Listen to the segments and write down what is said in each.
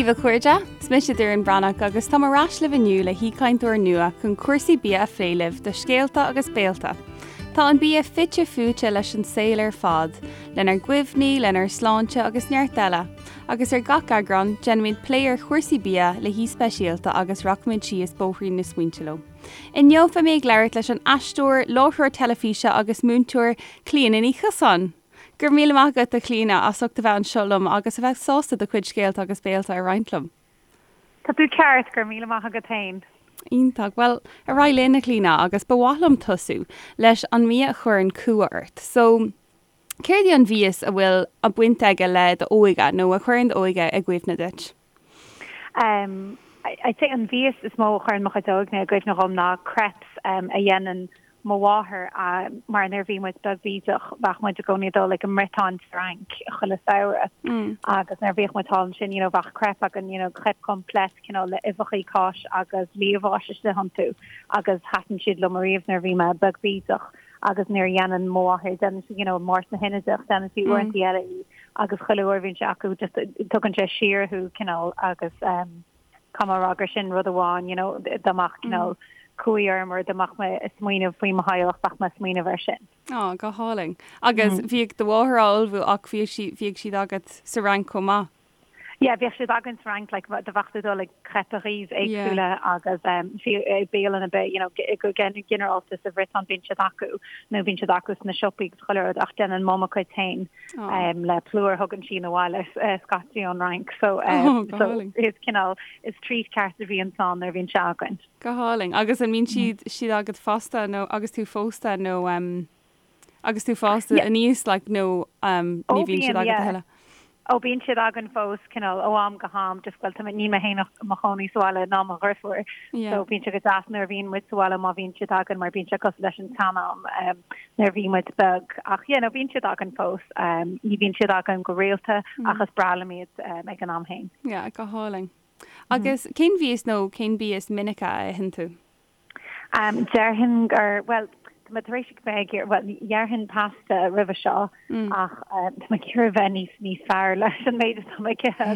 daoibh a chairde, is mise Doireann Breathnach agus táim ar ais libh inniu le haoichainteoir nua chun cúrsaí bia a phlé libh do Scéalta agus Béalta. Tá an bia fite fuaite leis an saol ar fad, lenár gcuimhní, lenár sláinte agus neart eile. Agus ar gach eagrán, déanaimid plé ar chúrsaí bia le haoi speisialta agus rachaimid síos bóithrín na smaointe leo. Inniu beidh mé ag labhairt leis an aisteoir, láithreoir teilifíse agus múinteoir Clíona Ní Chiosáin. Go raibh míle maith agat, a Chlíona, as ucht a bheith anseo liom agus a bheith sásta do chuid scéalta agus béalta a roinnt liom. Tá tú ceart, go raibh míle maith agat féin. Iontach. Bhuel, ar aghaidh linn, a Chlíona, agus ba mhaith liom tosú leis an mbia a chuireann cumha ort. So, céard í an mhias a bhfuil baint aige le d'óige nó a chuireann d'óige i gcuimhne duit? Um, I'd say an mhias is mó a chuireann mo chuid óige i gcuimhne dhom ná crepes um, a dhéanann mo mháthair mar nuair a bhí muid beag bídeach bheadh muid i gcónaí ag dul ag an mBriotáin sa Fhrainc chuile samhradh agus nuair a bhíodh muid thall ansin you know bheadh crepe againn you know crepe complète cineál le uibheachaí cáis agus liamhás istigh iontu agus thaitin siad liom ariamh nuair a bhí mé beag bídeach agus nuair a dhéanann mo mháthair déanann sí you know Máirt na hInide ach déanann sí uaireanta eile í agus chuile uair a bhíonn sé acu just tugann sé siar thú cineál agus um Caithfidh mé a rá gur sin rud amháin, you know, dá mbeadh cineál cumhaidh orm or dá mbeadh mé ag smaoineamh faoi mo theaghlach, bheadh mé ag smaoineamh air sin. Á, go hálainn. Agus bhíodh do mháthair á ullmhú ach bhíodh sí, bhíodh siad agat sa Fhrainc chomh maith? Yeah, bhíodh siad againn sa Fhrainc, like, do bheadh tú ag dul ag crêperies éagsúla agus um, fiú i bialanna ar bith, you know, go ginearálta sa Bhriotáin bíonn siad acu nó bíonn siad acu sna siopaí agus chuile rud ach déanann Mum a cuid féin. le plúr a thugann sí 'na bhaile scaití ón Fhrainc so so is cineál is treat ceart a bhíonn ann nuair a bhíonn sé againn. Go hálainn. Agus an mbíonn siad siad agat fosta nó agus tú phósta nó agus tú fásta aníos like nó ní bhíonn siad agat a thuilleadh? Ó bíonn siad againn fós cineál ó am go ham just bhuel tá mé níl mé féin i mo chónaí sa bhaile ná mo dheirfiúr so bíonn sé go deas nuair a bhíonn muid sa bhaile má bhíonn siad againn mar bíonn sé cosúil leis an tsean-am. nuair a bhí muid beag ach yeah no bíonn siad againn fós. Ní bhíonn siad againn go rialta ach is breá liom iad ag an am féin. Yeah, go hálainn. Agus cén mhias nó cén bia is minice a itheann tú? Déarfainn gur, bhuel, tá mé tar éis bheith ag iarraidh, bhuel, déarfainn pasta roimhe seo ach tá mé ag iarraidh bheith níos níos fearr leis an méid atá mé ag ithe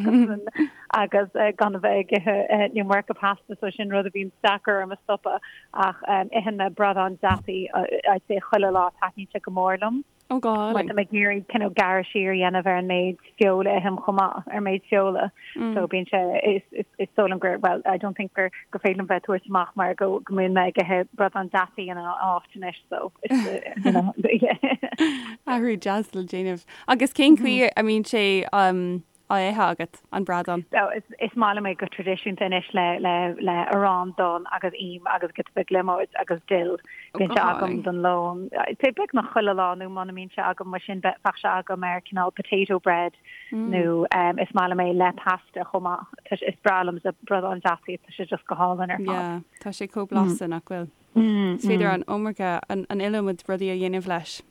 agus agus gan a bheith ag ithe an iomarca pasta so sin rud a bhíonn deacair orm a stopadh. Ach itheann mé bradán deataí I'd say chuile lá, taitníonn sé go mór liom. Ó go hálainn. Mar tá mé ag iarraidh cineál gearradh siar a dhéanamh ar an méid feola a ithim chomh maith, ar méid feola. So bíonn sé, is is dóigh liom gur, well, I don't think gur gur féidir liom bheith ag tabhairt amach mar go go mbíonn mé ag ithe bradán deataí ina áit anois so is you know yeah. Athrú deas le déanamh. Agus cén chaoi a mbíonn sé á ithe agat, an bradán? So is is maith liom é go traidisiúnta anois le le le arán donn agus im agus giota beag liomóid agus dill. Ó, go Bíonn sé agam hálainn. don lón. I'd say beagnach chuile lá nó muna mbíonn sé agam mar sin bheadh sé agam ar cineál potato bread nó um, is maith liom é le pasta chomh maith. Tá sé- Is breá liom sa bradán deataí, tá sé just go hálainn ar fad. Yeah, tá sé chomh blasta, nach bhfuil? Is féidir an iomarca, an an iliomad rudaí a dhéanamh leis.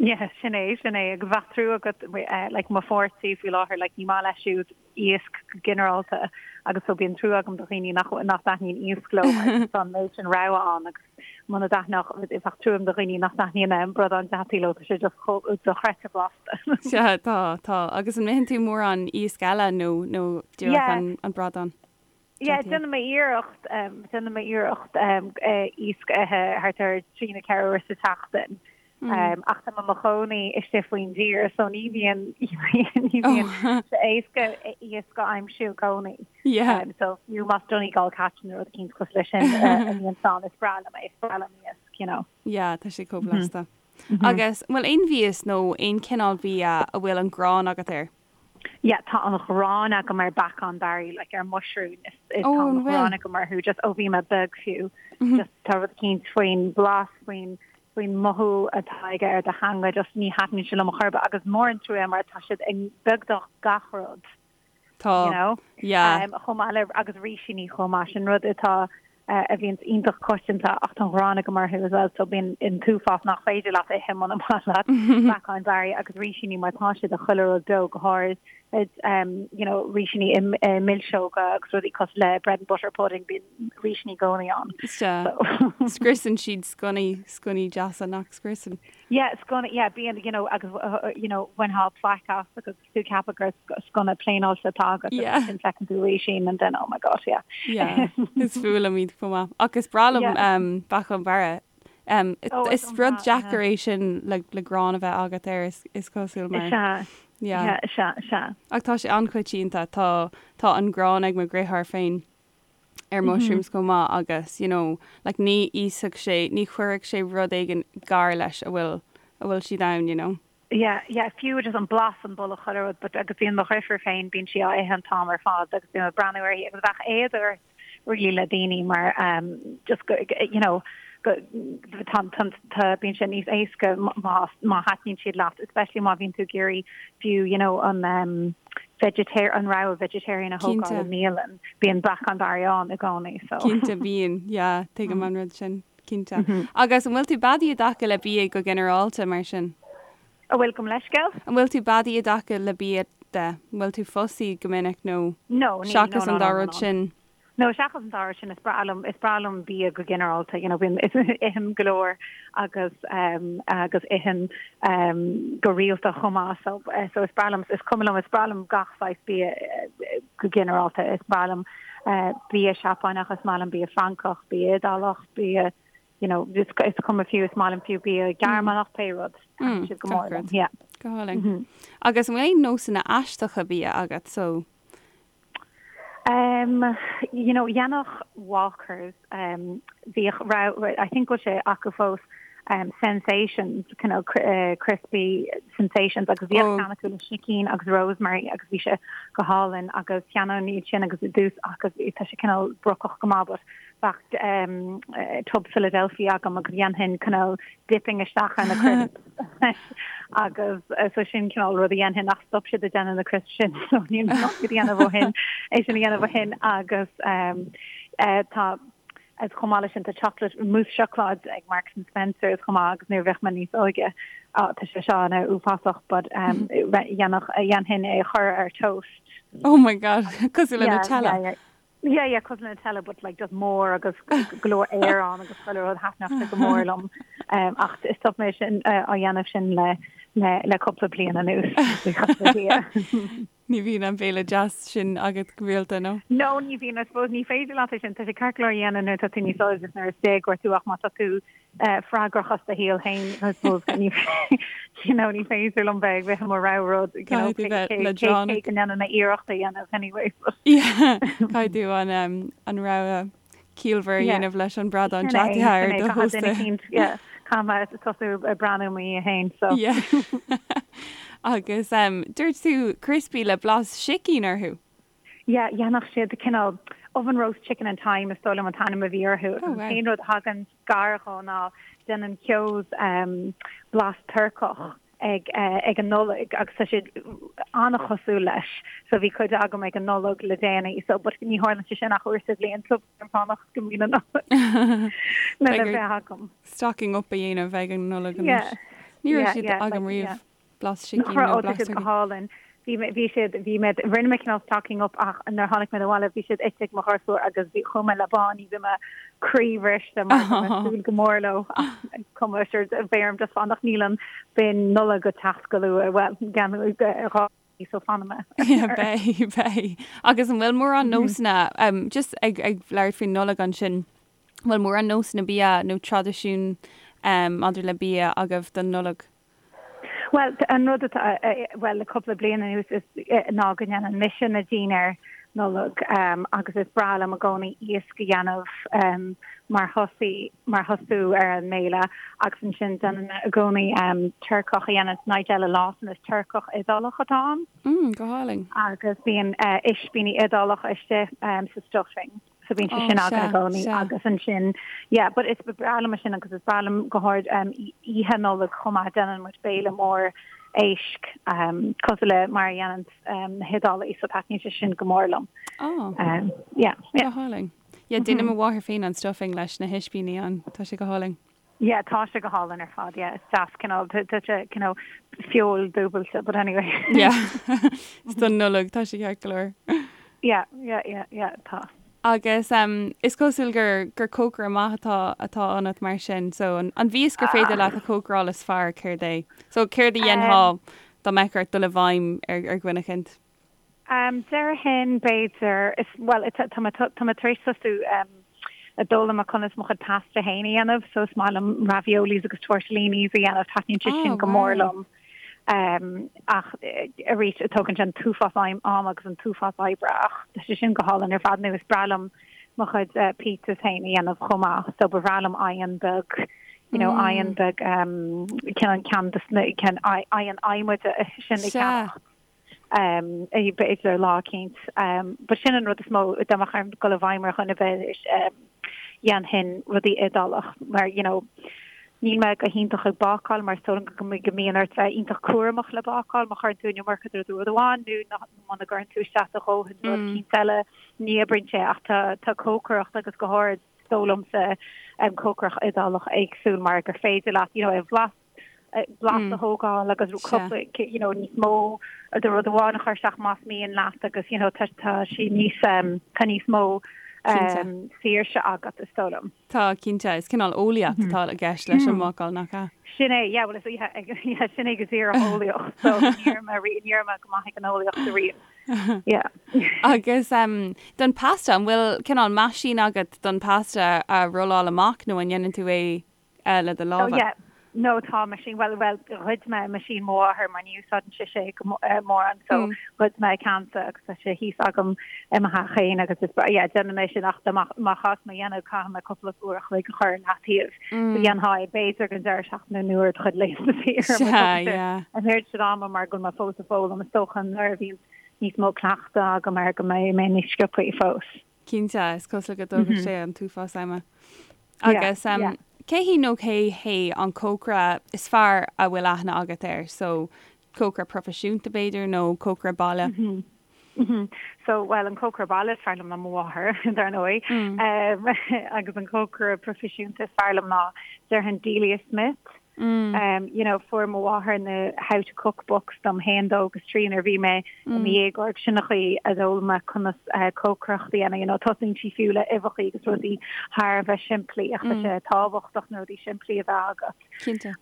Yeah, sin é, sin é. Agus bheadh trua agat, like, mo pháirtí faoi láthair, like, ní maith leis siúd iasc go ginearálta agus so bíonn trua agam do dhaoine nach, nach dtaitníonn iasc leo mar tá an méid sin rogha ann agus muna dtaitneodh, bheadh trua agam do dhaoine nach dtaitníonn bradán deataí leo, tá sé just chomh dochreidte blasta. Sea, tá, tá. Agus an itheann tú mórán iasc eile nó, nó díreach Yeah. an, an bradán? Yeah, déanaim mé iarracht, déanaim mé iarracht iasc a ithe thart ar 3 nó 4 uair sa tseachtain. Ach tá mé i mo chónaí istigh faoin dtír so ní bhíonn ní bhíonn sé éasca iasc a aimsiú i gcónaí. So fiú más Donegal catch nó rud eicínt cosúil leis sin a bhíonn ann, is breá liom é, is breá liom iasc, you know. Yeah, tá sé chomh blasta. Agus an bhfuil aon mhias nó aon chineál bia a bhfuil an ghráin agat air? Yeah, tá an ghráin agam ar beacán Barry, like ar muisriúin, is, is Oh, tá an an bhfuil? ghráin agam orthu just ó bhí mé beag fiú. Just tá rud eicínt faoin blas, faoin faoin mothú atá aige ar do theanga, just ní thaitníonn sé liom a chor ar bith agus mór an trua é mar tá siad i beagnach gach rud, Tá, you know? yeah. Um, chomh maith le agus rísíní chomh maith, sin rud atá a bhíonns iontach coitianta ach tá an ghráin agam orthu as well so bíonn an t-uafás nach féidir leat a ithe muna maith leat beacáin Barry agus rísíní mar tá siad i chuile rud beo go háirid. you know rísíní i milseoga agus rudaí cosúil le bread and butter pudding bíonn rísíní i gcónaí ann. Sea. Scriosann siad sconnaí, sconnaí deasa nach scriosann. Yeah, sconna, yeah, bíonn, you know, agus, you know, bhainfeá plaic as agus tú ag ceapadh gur sconna pléineáilte atá agat Yeah. agus ansin feiceann tú rísín and then oh my god, yeah. Yeah, is fuath liom iad chomh maith. Ach is breá liom Yeah. um, beacán bearra. Um, Oh, is is rud breá, deacair yeah. é sin le, le grán a bheith agat air is, is cosúil mar. Is ea, Yeah. yeah, is ea, is ea. Ach tá sé an-choitianta, tá, tá an grán ag mo dheartháir féin ar mushrooms chomh maith agus, you know, like ní íosfadh sé, ní chuirfeadh sé rud éigin gar leis a bhfuil, a bhfuil siad ann, you know. Yeah, yeah, fiú just an blas an boladh chuile rud but agus bíonn mo dheirfiúr féin, bíonn sí á ithe an t-am ar fad agus bím ag breathnú uirthi agus bheadh éad ort really le daoine mar um just go you know go tá tá tá bíonn sé níos éasca má má thaitníonn siad leat especially má bhíonn tú ag iarraidh fiú you know an um vegetar an rogha vegetarian a thógáil i mbialann bíonn beacán barraí ann i gcónaí so. Cinnte bíonn, yeah, tuigim an rud sin. Cinnte. Agus an bhfuil tú beadaí i dtaca le bia go ginearálta, mar sin? An bhfuil, gabh mo leithscéal? An bhfuil tú beadaí i dtaca le bia de? An bhfuil tú fussy go minic nó No, níl, no, seachas no, an no, dá no, rud no. sin? No, seachas an dá rud sin, is breá liom, is breá liom bia go ginearálta, you know, bím, ithim go leor agus um, agus ithim um, go rialta chomh maith, so, eh, so is breá liom, is cuma liom, is breá liom gach saghas bia eh, go ginearálta, is breá liom bia Seapáineach, is maith liom bia Francach, bia Iodálach, bia, you know, is cuma fiú, is maith liom fiú bia Gearmánach, pé rud, taitníonn siad go mór liom, yeah. Go hálainn. Agus an bhfuil aon nósanna aisteacha bia agat, so? Um, you know, dhéanfadh Walkers, um, bhíodh, I think go bhfuil sé acu fós, um, sensations, kind of uh, crispy sensations agus bhíodh oh. ceann acu le sicín agus rosemary agus bhí sé go hálainn agus cheannóinn iad sin agus i dtús agus tá sé cineál brocach go maith but bheadh um, uh, tub Philadelphia agam agus dhéanfainn cineál dipping isteach ar na crisps agus uh, so sin cineál rud a dhéanfainn ach stop siad ag déanamh na crisps sin so níl mé ag déanamh ó shin é sin a dhéanamh ó shin agus um, uh, tá Agus chomh maith leis sin tá chocolate mousse seacláid ag Marks and Spencer's chomh maith agus nuair a bhíodh mé níos óige oh tá sé seo ana uafásach but um dhéanfadh dhéanfainn é a chur ar toast. Oh my god, cosúil le Nutella. Yeah, yeah. Yeah, yeah, cosúil le Nutella but like just mór agus go leor aer ann agus chuile rud thaitneodh sé go mór liom. Um, ach stop mé sin uh, á dhéanamh sin le le le cúpla bliain anuas. Buíochas le Dia. Ní bhíonn an béile deas sin agat go rialta, nó? No, ní bhíonn, I suppose ní féidir leat é sin, tá sé ceart go leor a dhéanamh nuair atá tú níos óige agus nuair is déagóir tú ach má tá tú freagrach as do shaol féin, I suppose ní you know, ní féidir liom bheith ag ithe mo rogha rud, you know, Caithfidh tú bheith leadránach. cé go ndéanann mé iarracht a dhéanamh anyway. Yeah, caithfidh tú an an rogha ciallmhar a dhéanamh leis an bradán Sin é, deataithe ar sin é, do caithfidh duine thósta. eicínt, yeah, caithfidh mé tosú ag breathnú i mo dhiaidh féin, so. Yeah. Agus um, dúirt tú crispy le blas sicín orthu? Yeah, dhéanfadh siad cineál oven roast chicken and thyme is dóigh liom an t-ainm a bhí orthu. Oh, An wow. t-aon rud a thagann gar dhó ná déanann Keoghs um, blas Turcach ag ag an Nollaig agus tá siad an-chosúil leis so bhí cuid agam ag an Nollaig le déanaí so but ní tharlann sé sin ach uair sa bhliain so bím ag fanacht go mbíonn an Nollaig lena bheith agam. Stocking up a dhéanamh ag an Nollaig anois. Ní raibh siad agam riamh. Blas sicín nó blas go hálainn. Bhí mé, bhí siad, bhí mé, rinne mé cineál stocking up ach nuair a tháinig mé abhaile bhí siad ite ag mo ghasúir agus bhí, chuaigh mé le báiní, bhí mé croíbhriste mar bhí mé ag súil go mór leo ach is cuma sure beidh orm just fanacht níl an bin Nollag ag teacht go luath, bhuel, gan dhá mhí so fanfaidh mé. Yeah, beidh, beidh. Agus an bhfuil mórán nósanna, um, just ag, ag labhairt faoin Nollaig ansin, an bhfuil mórán nósanna bia nó traidisiún um, maidir le bia agaibh don Nollaig? Bhuel, an rud atá, bhuel, le cúpla bliain anuas is ná go ndéanann mise na dinnéir Nollag agus is breá liom i gcónaí iasc a dhéanamh mar thosaí, mar thosú ar an mbéile agus ansin déanann mé i gcónaí turcach a dhéanann Nigella Lawson, is turcach Iodálach atá ann. Mm, go hálainn. Agus bíonn ispíní Iodálacha istigh sa stuffing. So bíonn sé sin againn i gcónaí agus ansin yeah but is breá liom sin agus is breá liom go háirid um, oíche Nollag chomh maith déanann muid béile mór éisc um, cosúil le mar a dhéanann um, na hIodálaigh so taitníonn sé sin go mór liom. Oh. Um, yeah, yeah. Go hálainn. Yeah, déanann mo mháthair féin an stuffing leis na hispíní ann, tá sé go hálainn. Yeah, tá sé go hálainn ar fad, yeah. Is deas cineál, tá sé cineál feoil dúbailte, but anyway. Yeah, is don Nollaig, tá sé ceart go leor. Yeah, yeah, yeah, yeah, tá. Agus um, is cosúil gur, gur cócaire maith atá, atá ionat mar sin, so an, an mhias gur féidir leat a chócaráil is fearr, céard é? So céard a dhéanfá dá mbeadh ort dul i bhfeidhm ar, ar dhuine eicínt? Um, déarfainn b'fhéidir, is, bhuel, tá, tá mé, tá mé tar éis tosú um, ag foghlaim conas mo chuid pasta féin a dhéanamh, so is maith liom raviolis agus tortellinis a dhéanamh, taitníonn sé sin go mór liom. Um, ach arís, tógann sé an t-uafás ama agus an t-uafás oibre ach tá sé sin go hálainn ar fad nó is breá liom mo chuid uh, pizzas féin a dhéanamh chomh maith, so ba bhreá liom oigheann beag you know, oigheann beag um, ceann ceann ceann oigheann adhmaid sin a cheannach. Um, b'fhéidir lá eicínt. Um, but sin an rud is mó dá mbeadh orm dul i bhfeidhm ar dhuine ar bith um, dhéanfainn rudaí Iodálach mar you know, níl mé go hiontach ag bácáil mar is dóigh liom go go mbíonn ort bheith iontach cúramach le bácáil má chuireann tú an iomarca de rud amháin nó muna gcuireann tú isteach do dhóthain rud eicínt eile ní oibríonn sé ach tá tá cócaireacht agus go háirid is dóigh liomsa um, cócaireacht Iodálach éagsúil mar gur féidir leat you know, é bhlas blas a thógáil agus cúpla you know níos mó de rud amháin a chur isteach más mian leat agus you know tá tá sí níos um, tá níos mó um, saoirse agat is dóigh liom. Tá cinnte is cineál eolaíocht atá i gceist leis an mbácáil nach ea? Sin é, yeah, well is yeah, yeah, sin é go díreach eolaíocht, so ní raibh mé ní raibh mé go maith ag an eolaíocht ariamh. Yeah. Agus um, don pasta, an bhfuil cineál meaisín agat don pasta a rolláil amach nó an ndéanann tú é le do lámha? Oh yeah. No tá meaisín, well, well, ghoid mé meaisín mo mháthair mar ní úsáideann sise é go mórán so ghoid mé a ceannsa agus tá sé thíos agam i mo theach féin agus is yeah, déanann mé sin ach má chás mé dhéanamh caithfidh mé cúpla uair a chloig a chur i leataobh. So dhéanfá é b'fhéidir don deireadh seachtaine nó ar do chuid laethanta saoire an oiread sin ama mar go bhfuil mé fós ag foghlaim is dócha nuair a bhíonn níos mó cleachtadh agam air go mbeidh mé níos sciobthaí fós. Cinnte, is cosúil go dtógfaidh sé an t-uafás ama. Agus cé hí nó cé hé an cócaire is fearr a bhfuil aithne agat air? So, cócaire proifisiúnta b'fhéidir nó cócaire baile? So, well, an cócaire baile is fearr liom ná mo mháthair, dar ndóigh. Agus an cócaire proifisiúnta is fearr liom ná déarfainn Delia Smith. You know, fuair mo mháthair na How to Cook books dom féin dó agus trí nuair a bhí mé i mo dhéagóir sin an chaoi a d'fhoghlaim mé conas cócaireacht a dhéanamh. You know, tosaíonn sí fiú le uibheacha agus rudaí thar a bheith simplí ach tá sé tábhachtach na rudaí simplí a bheith agat. Cinnte.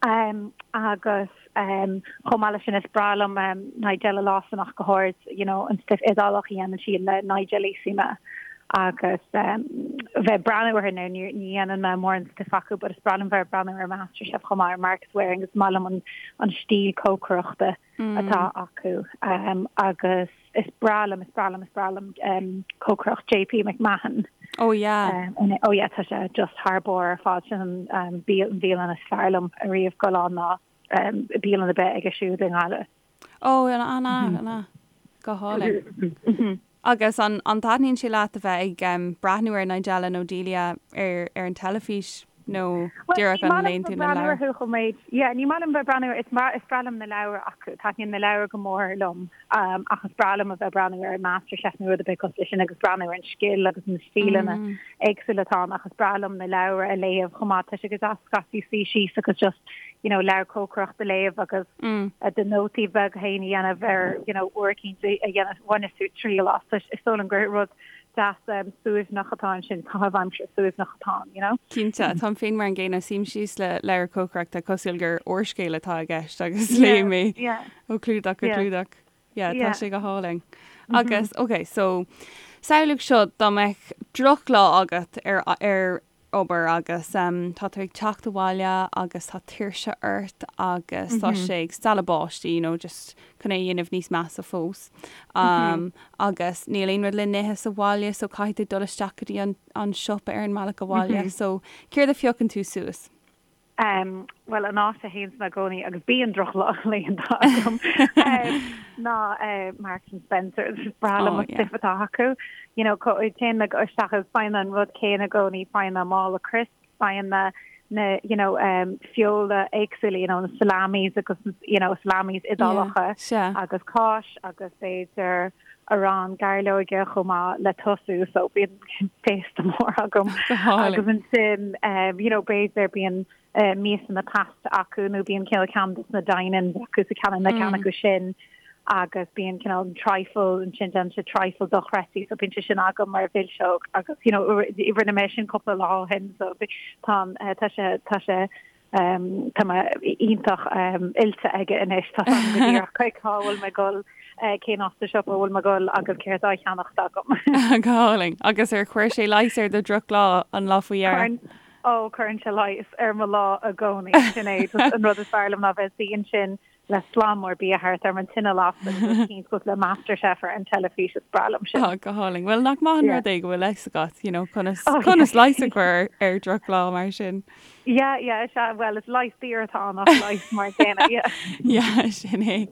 Agus chomh maith leis sin is breá liom Nigella Lawson ach go háirid, you know, an stuif Iodálach a dhéanann sí le Nigellissima agus bheith ag breathnú orthu now ní dhéanann mé mórán stuif acu but is breá liom bheith ag breathnú ar MasterChef chomh maith ar Marcus Wareing is maith liom an an stíl cócaireachta atá acu agus is breá liom is breá liom is breá liom cócaireacht JP McMahon. Oh yeah. Oh yeah tá sé just thar barr ar fad sin an bhialann is fearr liom ariamh dul ann ná bialann ar bith aige siúd i nGaillimh. Ó, an ea, an ea. Go hálainn. Agus an an dtaitníonn sé leat a bheith ag breathnú ar Nigella nó Delia ar ar an teilifís nó díreach an léann tú na leabhair? Yeah, ní maith liom bheith breathnú is is breá liom na leabhair acu, taitníonn na leabhair go mór liom ach is breá liom a bheith breathnú ar MasterChef nó rud ar bith cosúil leis sin agus breathnú ar an scil agus na stíleanna éagsúla atá ann ach is breá liom na leabhair a léamh chomh maith. Tá sé go deas scaití suí síos agus just you know leabhar cócaireachta a léamh agus do nótaí beaga féin a dhéanamh ar you know uair eicínt a dhéanamh bhaineas tú triail as. Is dóigh liom gur rud deas suaimhneach atá ansin, caitheamh aimsire suaimhneach atá ann, you know. Cinnte, táim féin mar an gcéanna, suím síos le leabhar cócaireachta cosúil gur úrscéal atá i gceist agus léim é ó chlúdach go clúdach. Yeah, tá sé go hálainn. Agus, ok, so, samhlaigh seo dá mbeadh drochlá agat ar ar obair agus um, tá tú ag teacht abhaile agus tá tuirse ort agus tá sé ag stealladh báistí, you know, just chun é a dhéanamh níos measa fós. Um, agus níl aon rud le n-ithe sa bhaile, so caithfidh tú dul isteach go dtí an, an siopa ar an mbealach abhaile. So, céard a phiocann tú suas? Em, bhuel, an áit a théanns mé i gcónaí, agus bíonn drochlaethanta agam, em, ná eh, Marks and Spencer's. Is breá liom an stuif atá acu. You know, téann mé isteach agus faigheann mé an rud céanna i gcónaí, faigheann mé mála crisps, faigheann mé Na, you know, feola éagsúla, you know, na salamis agus, you know, salamis Iodálacha agus cáis agus b'fhéidir arán gairleoige chomh maith le tosú, so bíonn féasta mór agam. Agus ansin, you know, b'fhéidir bíonn miasanna pasta acu nó bíonn cineál ceann de na dine-ins acu so ceann na ceann acu sin. agus bíonn cineál trifle ansin déanann sé trifle dochreidte so bíonn sé sin agam mar mhilseog agus you know rinne mé sin cúpla lá ó shin so tá tá sé tá sé um, tá mé iontach um, oilte aige anois tá go díreach cá bhfuil mé ag dul eh, cén áit sa siopa a bhfuil mé ag dul agus céard á cheannacht agam. Go hálainn. Agus ar chuir sé leigheas ar do dhrochlá an lá faoi dheireadh? Ó cuireann sé leigheas ar mo lá i gcónaí sin é an rud is fearr liom ná bheith suí ansin le slám mór bia thart orm, an tine lasta agus rud eicínt cosúil le MasterChef ar an teilifís, is breá liom sin. Oh, go hálainn. Bhuel, nach maith an rud é go bhfuil fhios agat, you know, conas, oh, conas yeah. leigheas a chur ar drochlá mar sin. Yeah, yeah, is ea, well, is leigheas daor atá ann ach leigheas mar céanna, yeah. Yeah, sin é.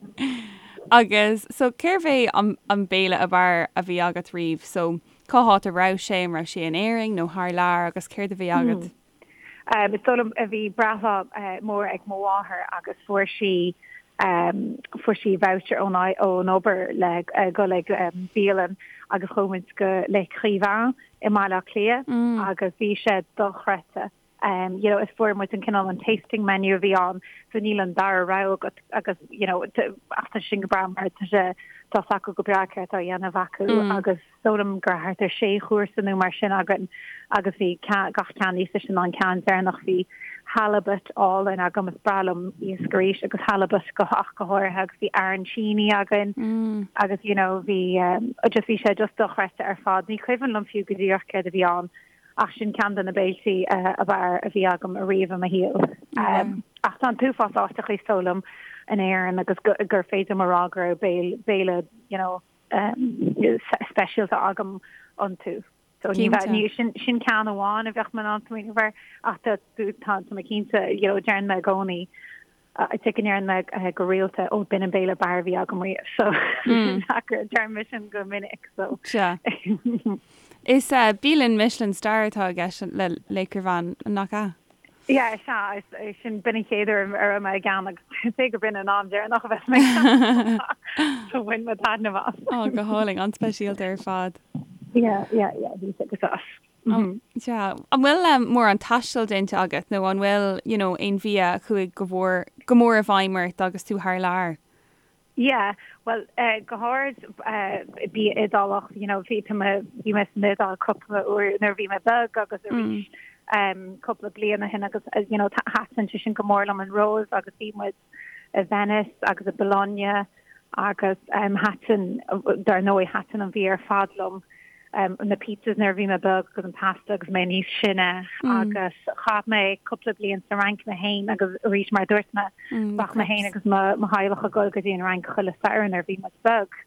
Agus, so, cérbh é an, an béile ab fhearr a bhí agat riamh? So, cá háit a raibh sé, an raibh sé in Éirinn nó thar lear agus céard a bhí agat? Hmm. Is dóigh liom bhí breithlá mór ag mo mháthair agus fuair sí fuair sí voucher ón ón obair le dhul ag bialann agus chuaigh muid go Les Écrivains i mBaile Átha Cliath agus bhí sé dochreidte. You know is fuair muid an cineál an tasting menu a bhí ann so níl an dara rogha agat agus you know ach tá sin go breá mar tá sé tá 's acu go breá céard atá á dhéanamh acu agus Is dóigh liom go raibh thart ar sé chúrsa nó mar sin againn agus bhí gach ceann níos deise ná an ceann deireanach. Bhí halibut álainn agam, is breá liom iasc arís agus halibut go ach go háirithe agus bhí arancini againn agus you know bhí just bhí sé just dochreidte ar fad. Ní cuimhin liom fiú go díreach céard a bhí ann ach sin ceann de na béiltí ab fhearr a bhí agam ariamh i mo shaol. Ach tá an t-uafás áiteacha is dóigh liom in Éirinn agus gur féidir liom a rá go raibh béile béile you know speisialta agam iontu. So ní bheadh, ní, sin, sin ceann amháin a bheadh mé in ann smaoineamh air ach tá, tá, tá mé cinnte, you know, deireann mé i gcónaí, I think go ndeireann mé go rialta, ó b'in an béile ab fhearr a bhí agam riamh. So deireann mé sin go minic. So. Sea. Is bialann Michelin star atá i gceist le L'Écrivain, nach ea? Yeah, is ea, is sin, b'in an chéad uair a raibh mé ag ann agus is é go b'in an am deireanach a bheas mé ag ann. So bhain mé taitneamh as. Ó, go hálainn, an-speisialta ar fad. Yeah, yeah, yeah, bhí sé go deas. Mm. Sea. An bhfuil um, mórán taistil déanta agat nó an bhfuil, you know, aon bhia a chuaigh go mhór, go mór i bhfeidhm ort agus tú thar lear? Yeah, bhuel, go háirid bia Iodálach, you know, bhí, tá mé, bhí mé san Iodáil cúpla uair nuair a bhí mé beag agus arís cúpla bliain ó shin agus, you know, thaitin sé sin go mór liom an Róimh agus bhí muid i Venice agus i Bologna agus thaitin, dar ndóigh, thaitin an bhia ar fad liom. na pizzas nuair a bhí mé beag agus an pasta agus mé níos sine agus chaith mé cúpla bliain sa Fhrainc mé féin agus arís mar a dúirt mé bheadh mé féin agus mo mo theaghlach ag dul go dtí an Fhrainc chuile Satharn nuair a bhí muid beag.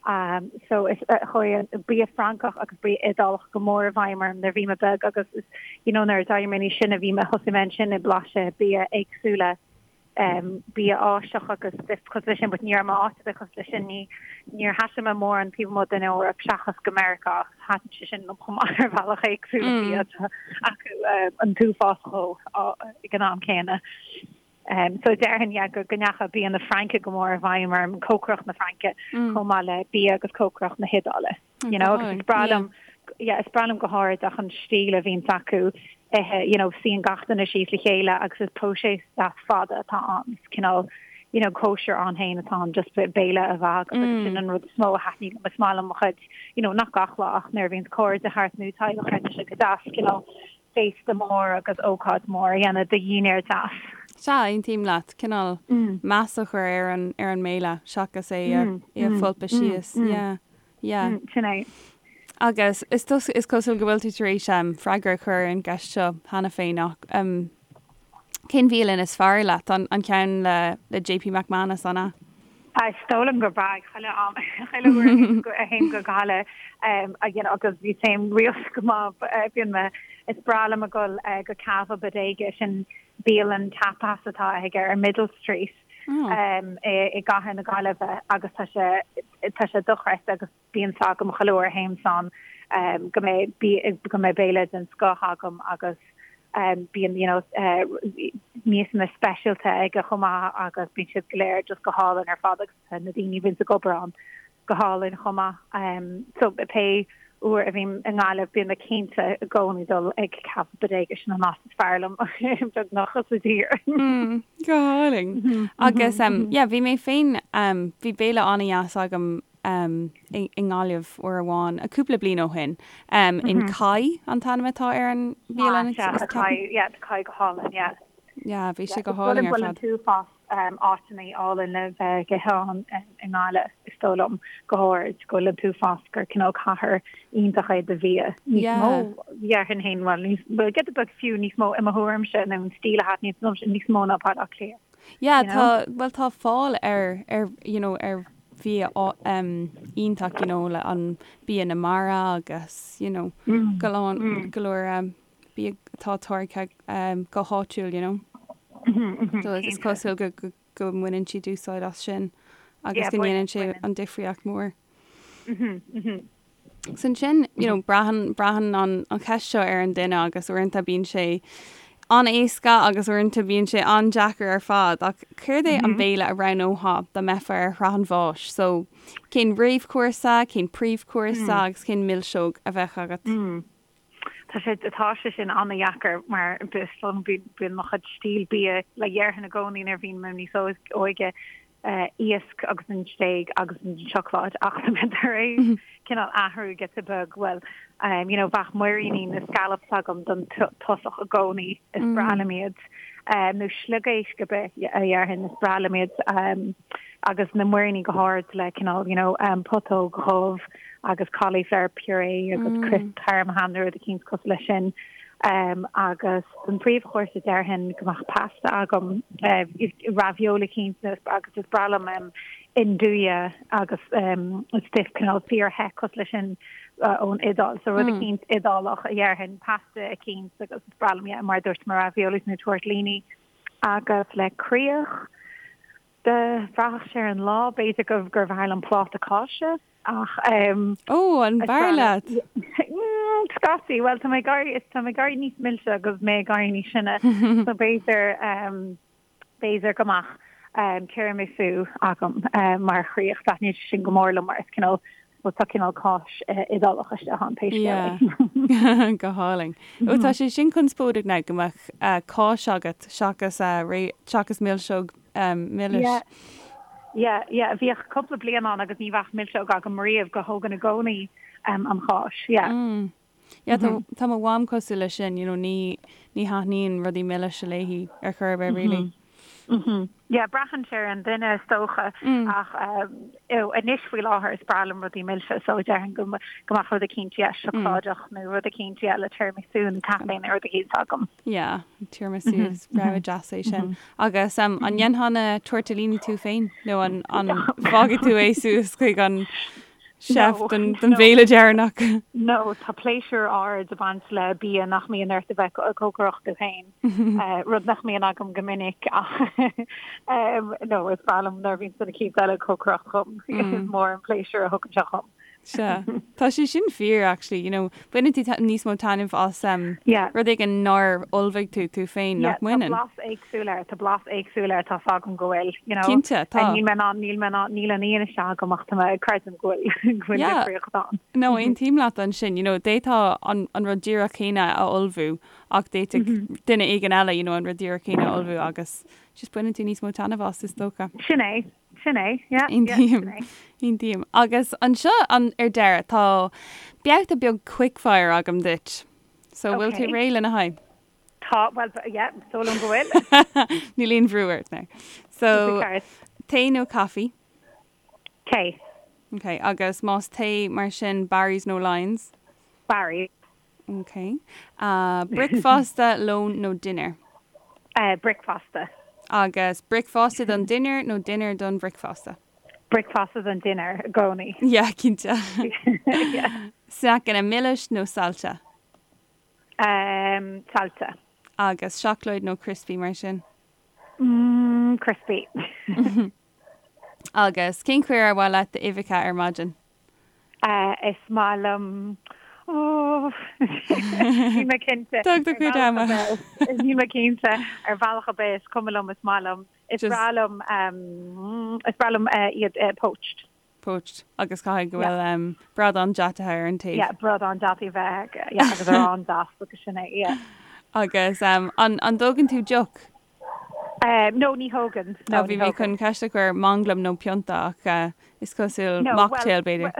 Um, so is uh, chuaigh an bia Francach agus bia Iodálach go mór i bhfeidhm orm nuair a bhí mé beag agus is, you know, nuair a d'éirigh mé níos sine bhí mé thosaigh mé ansin ag blaiseadh bia éagsúla bia Áiseach agus stuif cosúil leis sin, but ní raibh mé áit ar bith cosúil leis sin, ní, níor thaistil mé mórán taobh amuigh den Eoraip seachas go Meiriceá agus thaitin sé sin liom chomh maith ar bhealach éagsúil an bia atá acu an t-uafás dhó ag an am céanna. So déarfainn, yeah, go go ndeachaigh bia na Fraince go mór i bhfeidhm orm, cócaireacht na Fraince chomh maith le bia agus cócaireacht na hIodáile. You know, agus is breá liom, yeah, is breá liom go háirid ach an stíl a bhíonns acu ithe, you know, suíonn gach duine síos le chéile agus is próiseas deas fada atá ann, is cineál, you know, cóisir ann féin atá ann, just béile a bheith agat agus sin an rud is mó a thaitníonn liom, is maith liom mo chuid, you know, nach gach lá ach nuair a bhíonns cairde thart nó teaghlach thart, tá sé go deas, cineál féasta mór agus ócáid mór a dhéanamh de dhinnéar deas. Sea, aontaím leat. Cineál meas a chur ar an, ar an mbéile seachas é a, é a pholpadh síos. Yeah. Yeah. Sin é. Agus is is cosúil go bhfuil tú tar éis freagra a chur ar an gceist seo cheana féin ach cén bhialann is fearr leat? An an ceann le le JP McManus, an ea? Is dóigh liom gurb ea, chuile am, chuile uair a théim go Gaillimh you know agus bhí téim rialta go maith bíonn mé, is breá liom a dhul go Cava Bodega, sin bialann tapas atá aige ar Middle Street i gcathair na Gaillimhe agus tá sé tá sé dochreidte agus bíonn 's agam chuile uair a théim ann go mbeidh go mbeidh béile den scoth agam agus. Bíonn you know miasanna speisialta aige chomh maith agus bíonn siad go léir just go hálainn ar fad agus na daoine a bhíonns ag obair ann go hálainn chomh maith. So pé uair a bhím i nGaillimh bíonn mé cinnte i gcónaí dul ag Café Bodega sin an áit is fearr liom beagnach sa tír. Go hálainn. Agus yeah bhí mé féin bhí béile an-dheas agam i nGaillimh uair amháin, cúpla bliain ó shin. In Kai an t-ainm atá ar an bhialann. Ah, sea, Kai, yeah, Kai go hálainn, yeah. Yeah, bhí sé go hálainn ar fad. Bhfuil an t-uafás áiteanna álainn le bheith ag ithe ann i nGaillimh, is dóigh liom, go háirid, go bhfuil an t-uafás gur cineál cathair iontach é do bhia. Níos mó, déarfainn féin, bhuel, níos, bhuel, giota beag fiú níos mó i mo thuairimse nó an stíl a thaitníonn liomsa níos mó ná Baile Átha Cliath. Yeah, tá, bhuel, tá fáil ar, ar, you know, ar bhia iontach, you know, le an bia na mara agus, you know, go lán, go leor bia atá táirgthe go háitiúil, you know. So is cosúil go, go, go mbaineann siad úsáid as sin agus go ndéanann sé an difríocht mór. So ansin, you know, braitheann, braitheann an, an cheist seo ar an duine agus uaireanta bíonn sé an-éasca agus uaireanta bíonn sé an-deacair ar fad ach céard é an béile a roghnófá dá mbeifeá ar shraith an bháis? So cén réamhchúrsa, cén príomhchúrsa agus cén milseog a bheadh agat? Tá sé, tá sé sin an-dheacair mar is dóigh liom bíonn mo chuid stíl bia le déarfainn i gcónaí nuair a bhí mé níos óige, iasc agus an stéig agus an seacláid ach tá mé tar éis cineál athrú giota beag, bhuel you know bheadh muiríní nó scallops agam don tosach i gcónaí, is breá liom iad, nó sliogéisc ar bith a dhéarfainn, is breá liom iad agus na muiríní go háirid le cineál you know putóg dhubh agus cauliflower puree agus crisp parmesan nó rud eicínt cosúil leis sin. Agus don phríomhchúrsa déarfainn go mbeadh pasta agam, ravioli eicínt agus is breá liom 'nduja agus stuif cineál fíor-the cosúil leis sin ón Iodáil. So rud eicínt Iodálach a dhéarfainn, pasta eicínt agus is breá liom, yeah, mar a dúirt mé raviolis nó tortellini. Agus le críoch, bhraithfeadh sé ar an lá, b'fhéidir gurbh fhearr liom pláta cáise. Ach ehm. Ó, an b'fhearr leat? Scaití, bhuel tá mé ag éirí, tá mé ag éirí níos milse agus mé ag éirí níos sine so b'fhéidir ehm b'fhéidir go mbeadh ehm tiramisu agam mar chríoch. Taitníonn sé sin go mór liom mar is cineál, bhuel tá cineál cáis Iodálach istigh ann pé scéal é. Yeah, go hálainn. Ó tá sé sin conspóideach now go mbeadh cáis agat seachas seachas milseog milis. Yeah, yeah, yeah. Bhíodh cúpla bliain ann agus ní bheadh milseog agam riamh go thógainn i gcónaí an cháis. Yeah. Mm. Yeah, tá, tá mo mham cosúil leis sin, you know, ní, ní thaitníonn rudaí milise léi ar chor ar bith, really. Mm-hmm. Yeah, braitheann sé ar an duine is dócha mm. ach anois faoi láthair is breá liom rudaí milse so déarfainn go go mbeadh rud eicínt yeah, seacláideach mm. nó rud eicínt yeah, le tiramisu nó caife nó rud eicínt agam. Yeah, tiramisu is rogha deas é sin. Agus an ndéanfá na tortellini tú féin nó an bhfágfaidh tú é suas chuig an chef don bhéile deireanach? No, tá pléisiúr ard ag baint le bia nach mbíonn ort a bheith ag cócaireacht tú féin, rud nach mbíonn agam go minic ach no, is breá liom nuair a bhíonn duine eicínt eile ag cócaireacht dhom, is mór an pléisiúr a thugann sé dhom. Sea. Tá sé sin fíor actually, you know, baineann tú níos mó taitneamh as um, Yeah. rud éigin nár ullmhaigh tú tú féin, Yeah, nach mbaineann? tá blas éagsúil air, tá blas éagsúil air, tá's agam go bhfuil, you know. Cinnte, tá. Níl mé in ann, níl mé in ann, níl an fhianaise agam ach tá mé ag creidim go bhfuil, go bhfuil Yeah. difríocht ann. No, aontaím leat ansin, you know, d'fhéadfá an, an rud díreach céanna a ullmhú ach d'fhéadfadh duine éigin eile, you know, an rud díreach céanna a ullmhú agus just baineann tú níos mó taitneamh as, is dócha. Sin é. Sin é, yeah, yeah, sin é. Aontaím. Agus anseo an, ar deireadh, tá babhta beag quickfire agam duit. So, bhfuil tú réidh lena haghaidh? Tá, bhuel, yeah, is dóigh liom go bhfuil. Níl aon bhrú ort now. So, tae nó caife? Tae. Ok, agus más tae mar sin, Barry's nó Lyons? Barry's. Ok. Bricfeasta, lón nó dinnéar? Bricfeasta. Agus bricfeasta don dinnéar nó dinnéar don bhricfeasta? Bricfeasta don dinnéar i gcónaí. Yeah, cinnte. Sneaiceanna milis nó saillte? Saillte. Agus seacláid nó crispy mar sin? Crispy. Agus cén chaoi ar mhaith leat d'uibheacha ar maidin? Is maith liom. Níl mé cinnte. Tóg do chuid ama. Níl mé cinnte ar bhealach ar bith is cuma liom is maith liom. Is breá liom is breá liom iad poached. Poached agus caithfidh go bhfuil bradán deataithe ar an taobh. Yeah, bradán deataigh a bheith yeah agus arán deas agus sin é, yeah. Agus an an dtógann tú deoch? No, ní thógann. No, ní thógann. Bhí mé chun ceist a chur manglam nó pionta ach is cosúil mocktail b'fhéidir.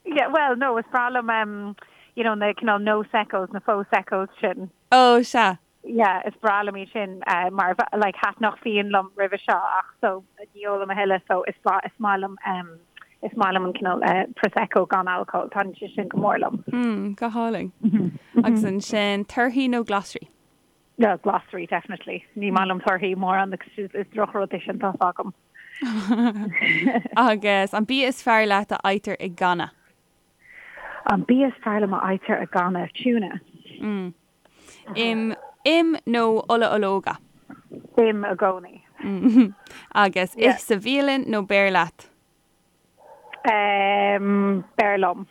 Yeah, well, no, is breá liom, um, you know, na cineál no-seccos, na faux-seccos sin. Oh, sea. Yeah, is breá liom iad sin, uh, mar, like, thaitneodh fíon liom roimhe seo ach so ní ólaim a thuilleadh so is is maith liom, um, is maith liom an cineál, uh, prosecco gan alcól, taitníonn sé sin go mór liom. Mm, go hálainn. Agus ansin, torthaí nó glasraí? Yeah, glasraí, definitely. Ní maith liom torthaí mórán agus is, is drochrud é sin, tá's agam. Agus an bia is fearr leat a fhaightear i gcanna? An bia is fearr liom a fhaightear i gcanna? Tuna. Mm. Im, im nó ola ológa? Im i gcónaí. Agus ith sa bhialann nó beir leat? Um, beir liom.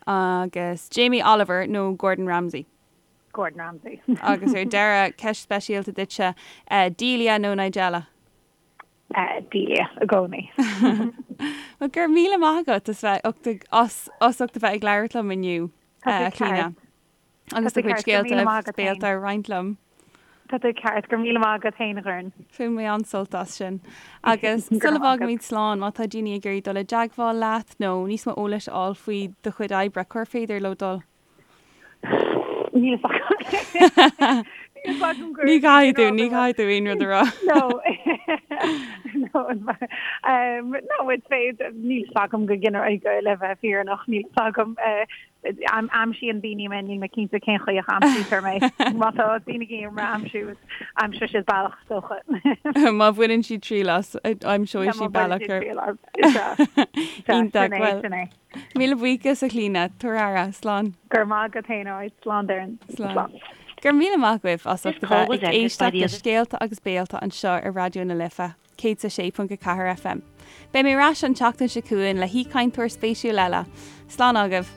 Agus Jamie Oliver nó Gordon Ramsay? Gordon Ramsay. Agus ar deireadh, ceist speisialta duitse, Delia nó Nigella? Delia i gcónaí. Bhuel, go raibh míle maith agat as bheith ucht ag, as, as ucht a bheith ag labhairt liom inniu, Tá tú Clíona. ceart. Agus Tá do tú chuid ceart, go raibh scéalta míle maith agus agat féin. béalta a roinnt liom. Tá tú ceart, go raibh míle maith agat féin, a Dhoireann. Bhain mé an-sult as sin. Agus Go raibh sula maith agat. bhfágaimid slán, má tá daoine ag iarraidh dul i dteagmháil leat nó níos mó eolais a fháil faoi do chuid oibre, cár féidir leo dul? Níl a fhios agam. Níl a fhios agam Ní chaithfidh tú, ní chaithfidh tú aon rud a rá. No. No, um, no, is féidir, níl a fhios agam go ginearálta le bheith fírinneach, níl a fhios agam. Uh, aimsíonn daoine mé, níl mé cinnte cén chaoi a aimsítear mé. Má tá daoine ag iarraidh mé a aimsiú, aimseoidh siad bealach is dócha. Má bhaineann siad triail as, aimseoidh siad bealach ar. Iontach, bhuel. Míle buíochas, a Chlíona. Tabhair aire. Slán. Go raibh maith agat féin, alright. Slán, Doireann. Slán. Go raibh míle maith agaibh as ucht a bheith ag éisteacht le Scéalta agus Béalta anseo ar Raidió na Life, 106.4 FM. Beidh mé ar ais an tseachtain seo chugainn le haoichainteoir spéisiúil eile. Slán agaibh.